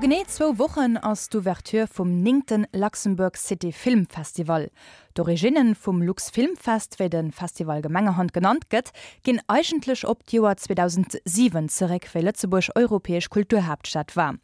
A genee zwou Wochen ass d'Ouverture vum néngte Luxembourg City Film Festival. D'Originne vum Luxfilmfest, wéi de Festival gemengerhand genannt gëtt, ginn eigentlech op d'Joer 2007 zeréck, wéi Lëtzebuerg europäesch Kulturhaaptstad war.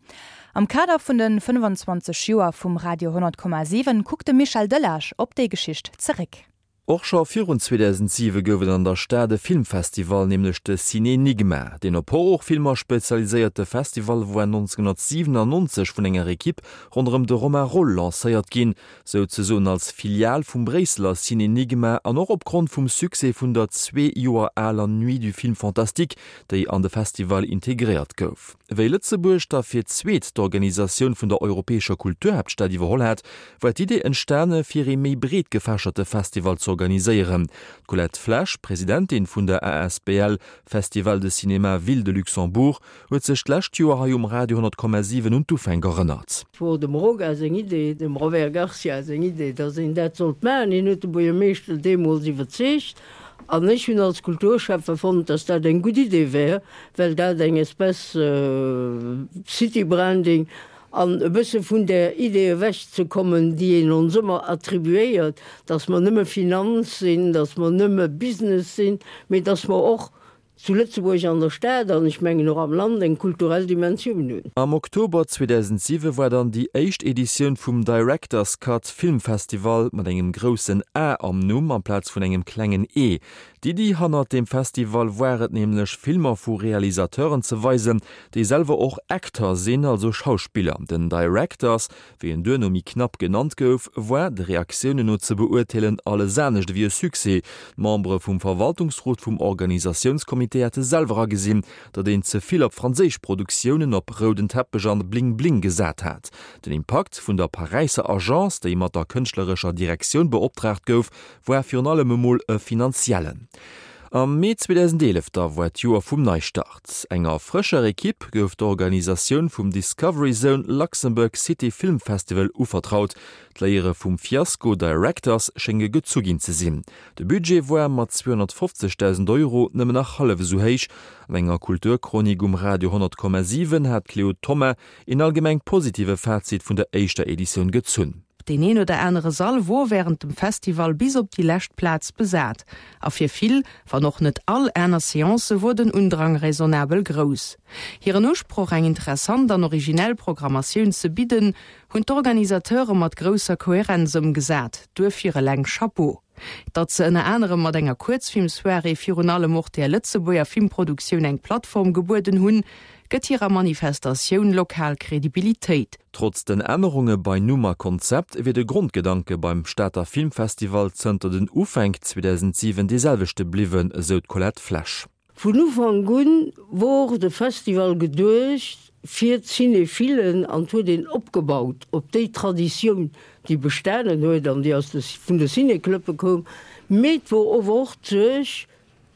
Am Kader vun de 25 Joer vum Radio 100,7 kuckt de Michel Delage op déi Geschicht zeréck. Och scho virun 2007 gouf et an der Stad e Filmfestival, nämlech de Cinénigma. Deen op Horrorfilmer spezialiséierte Festival woar 1997 vun enger Ekipp ronderëm de Romain Roll lancéiert ginn, souzesoen als Filial vum Bréisseler Cinénigma an och opgrond vum Succès vun der zwee Joer aler Nuit du film fantastique, déi an de Festival integréiert gouf. Wéi Lëtzebuerg da fir d'zweet d'Organisatioun vun der europäescher Kulturhaaptstad iwwerholl hat, war d'Idee entstane fir ee méi breet gefächerte Festival z'organiséieren. D'Colette Flesch, Presidentin vun der asbl Festival de Cinéma Ville de Luxembourg, huet sech d'lescht Joer hei um Radio 100,7 un d'Ufänk erënnert. Et wor dem Roga seng Idee, dem Robert Garcia seng Idee, datt een dat sollt maachen. Hien huet de Buergermeeschter deemools iwwerzeegt. An ech hunn als Kulturschäffe fonnt, dass dat eng gutt Idee wär, well dat eng Espèce City-Branding an e bësse vun där Idee ewechzekommen, déi een ons ëmmer attribuéiert, dass mer nëmme Finanz sinn, dass mer nëmme Business sinn, mee dass mer och zu Lëtzebuerg an der Stad an ech mengen och am Land eng kulturell Dimensioun hunn. Am Oktober 2007 war dann déi éischt Editioun vum Director's Cut Film Festival mat engem groussen A am Numm amplaz vun engem klengen E. D'Iddi hannert deem Festival war et nämlech Filmer vu Realisateuren ze weisen, déi selwer och Acteur sinn, also Schauspiller. Den Director's Wéi en duerno méi knapp genannt gouf, war, de Reaktiounen no ze beurteelen, alles anescht ewéi e Succès. D'Membere vum Verwaltungsrot vum Organisatiounscomité hate selwer agesinn, datt een ze vill op franséisch Produktiounen, op rouden Teppech an Bling Bling gesat hat. Den Impakt vun der Paräisser Agence, déi mat der kënschtlerescher Direktioun beoptraagt gouf, war virun allem emol e finanziellen. Am Mee 2011 da war d'Joer vum Neistart. Enger frëscher Ekipp gouf d'Organisatioun vum Discovery Zone Luxembourg City Film Festival uvertraut. D'Léiere vum Fiasko Directors schénge gezu ginn ze sinn. De Budget war mat 250.000 Euro nëmmen nach hallef esou héich. An enger Kulturchronik um Radio 100,7 hat d'Cléo Thoma een allgemeng positive Fazit vun der éischter Editioun gezunn. Deen een oder anere Sall wor wärend dem Festival bis op déi lescht Plaz besat, a fir vill, wann och net all, aner Seancë wor den Undrang raisonnabel grouss. Hiren Usproch, eng interessant an originell Programmatioun ze bidden, hunn d'Organisateure mat grousser Kohärenz ëmgesat. Duerfir eleng Chapeau! Datt se ënner anerem mat enger Kuerzfilmsoirée virun allem och der Lëtzebuerger Filmproduktioun eng Plattform gebueden hunn, gëtt hirer Manifestatioun lokal Kredibilitéit. Trotz den Ännerunge bei Numm a Konzept wier de Grondgedanke beim Stater Filmfestival zënter den Ufänk 2007 dee selwechte bliwwen, esou d'Colette Flesch. Vun Ufank un wor de Festival geduecht fir d'Cinéphilen an huet een opgebaut op déi Traditioun, déi bestanen huet an déi aus de vun de Ciné-Clubbe koum, mee et wor ower och d'Suerg,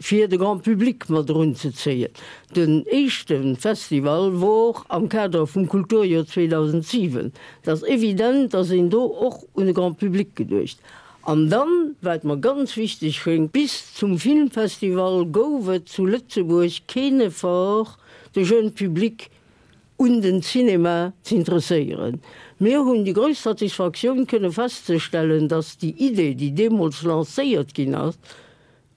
fir de Grand Public mat erunzezéien. Den éischte Festival wor am Kader vum Kulturjoer 2007. Et ass evident, dass een do och un de Grand Public geduecht. An dann, wat mer ganz wichteg schéngt, bis zum Filmfestival gouf et zu Lëtzebuerg keen Effort, de jeune Public un den Cinema z'interesséieren. Mir hunn déi grouss Satisfaktioun kënne festzestellen, dass déi Idee, déi deemools lancéiert ginn ass,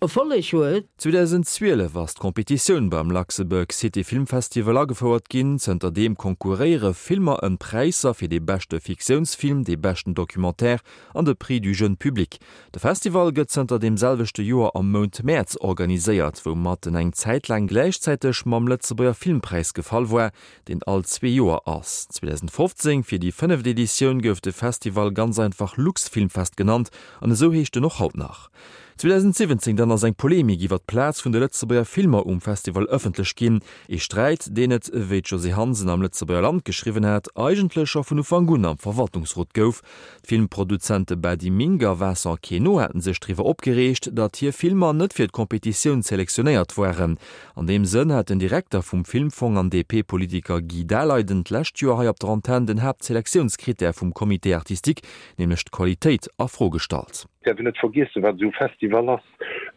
Erfolleg huet. 2012 ass d'Competitioun beim Luxembourg City Film Festival agefouert ginn. Zënter deem konkurréiere Filmer ëm d'Präisser fir dee beschte Fiktiounsfilm, dee beschten Documentaire an de Prix du jeune public. De Festival gëtt zënter deem selwechte Joer am Mount Mäerz organiséiert, woumat en eng Zäit laang gläichzäiteg mam Lëtzebuerger Filmpräis gefall war, deen all zwee Joer ass. 2015, fir déi fënneft Editioun, gouf de Festival ganz einfach Luxfilmfest genannt an esou heescht en och haut nach. 2017 dann ass eng Polemik iwwer d'Plaz vun de Lëtzebuerger Filmer um Festival ëffentlech ginn. Ee Sträit, deen et, wéi d'Josée Hansen am Lëtzebuerger Land geschriwwen hat, eigentlech scho vun Ufank un am Verwaltungsrot gouf. D'Filmproduzente Bady Minck a Vincent Queneau haten sech driwwer opgereegt, datt hir Filmer net fir d'Competitioun selektionéiert waren. An deem Sënn hat den Direkter vum Filmfong an DP-Politiker Guy Daleiden d'lescht Joer hei op der Antenn den Haaptselektiounskrittär vum Comité artistique, nämlech d'Qualitéit, a Fro gestallt. Däerf een net vergiessen, wat esou e Festival ass.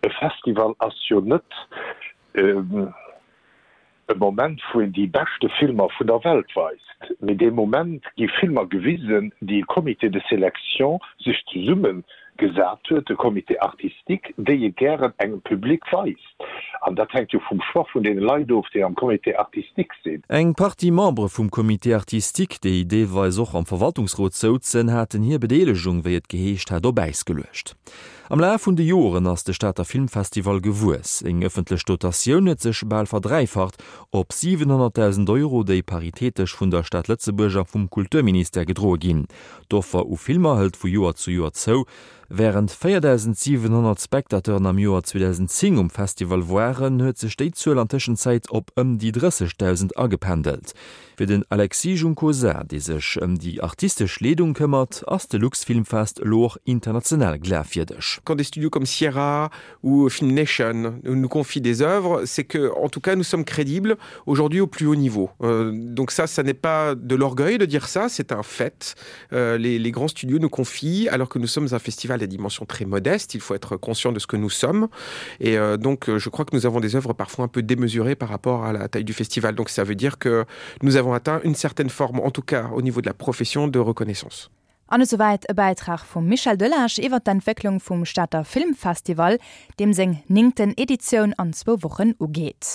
E Festival ass jo net. e Moment, wou een déi beschte Filmer vun der Welt weist, mee dee Moment gi Filmer gewisen, déi e Comité de sélection sech zesumme gesat huet, e Comité artistique, déi e gären engem Public weist. An dat hänkt jo vum Choix vun deene Leit of, déi am Comité artistique sinn. Eng Partie Membere vum Comité artistique, déi deelweis och am Verwaltungsrot souzen, haten hir Bedeelegung, wéi et geheescht hat, op Äis geluecht. Am Laf vun de Joren ass de Stater Filmfestival gewuess. Seng ëffentlech Dotatioun huet sech bal verdräifacht op 700.000 Euro, déi paritätesch vun der Stad Lëtzebuerg a vum Kulturministère gedroe ginn. D'Offer u Filmer hëlt vu Joer zu Joer zou. Wärend 4.700 Spectateuren am Joer 2010 um Festival waren, huet sech déi Zuel an Tëschenzäit op ëm déi 30.000 agependelt. Fir den Alexis Juncosa, dee sech ëm déi artistesch Leedung këmmert, ass de Luxfilmfest elo och international glafwierdeg. Quand des studios comme Sierra ou Film Nation nous confient des œuvres, c'est que en tout cas nous sommes crédibles aujourd'hui au plus haut niveau. Euh, donc ça, ça n'est pas de l'orgueil de dire ça, c'est un fait. Euh, les, les grands studios nous confient alors que nous sommes un festival à dimension très modeste, il faut être conscient de ce que nous sommes. Et euh, donc je crois que nous avons des œuvres parfois un peu démesurées par rapport à la taille du festival. Donc ça veut dire que nous avons atteint une certaine forme, en tout cas au niveau de la profession de reconnaissance. An esouwäit e Bäitrag vum Michel Delage iwwer d'Entwécklung vum Stater Filmfestival, deem seng néngten Editioun an zwou Wochen ugeet.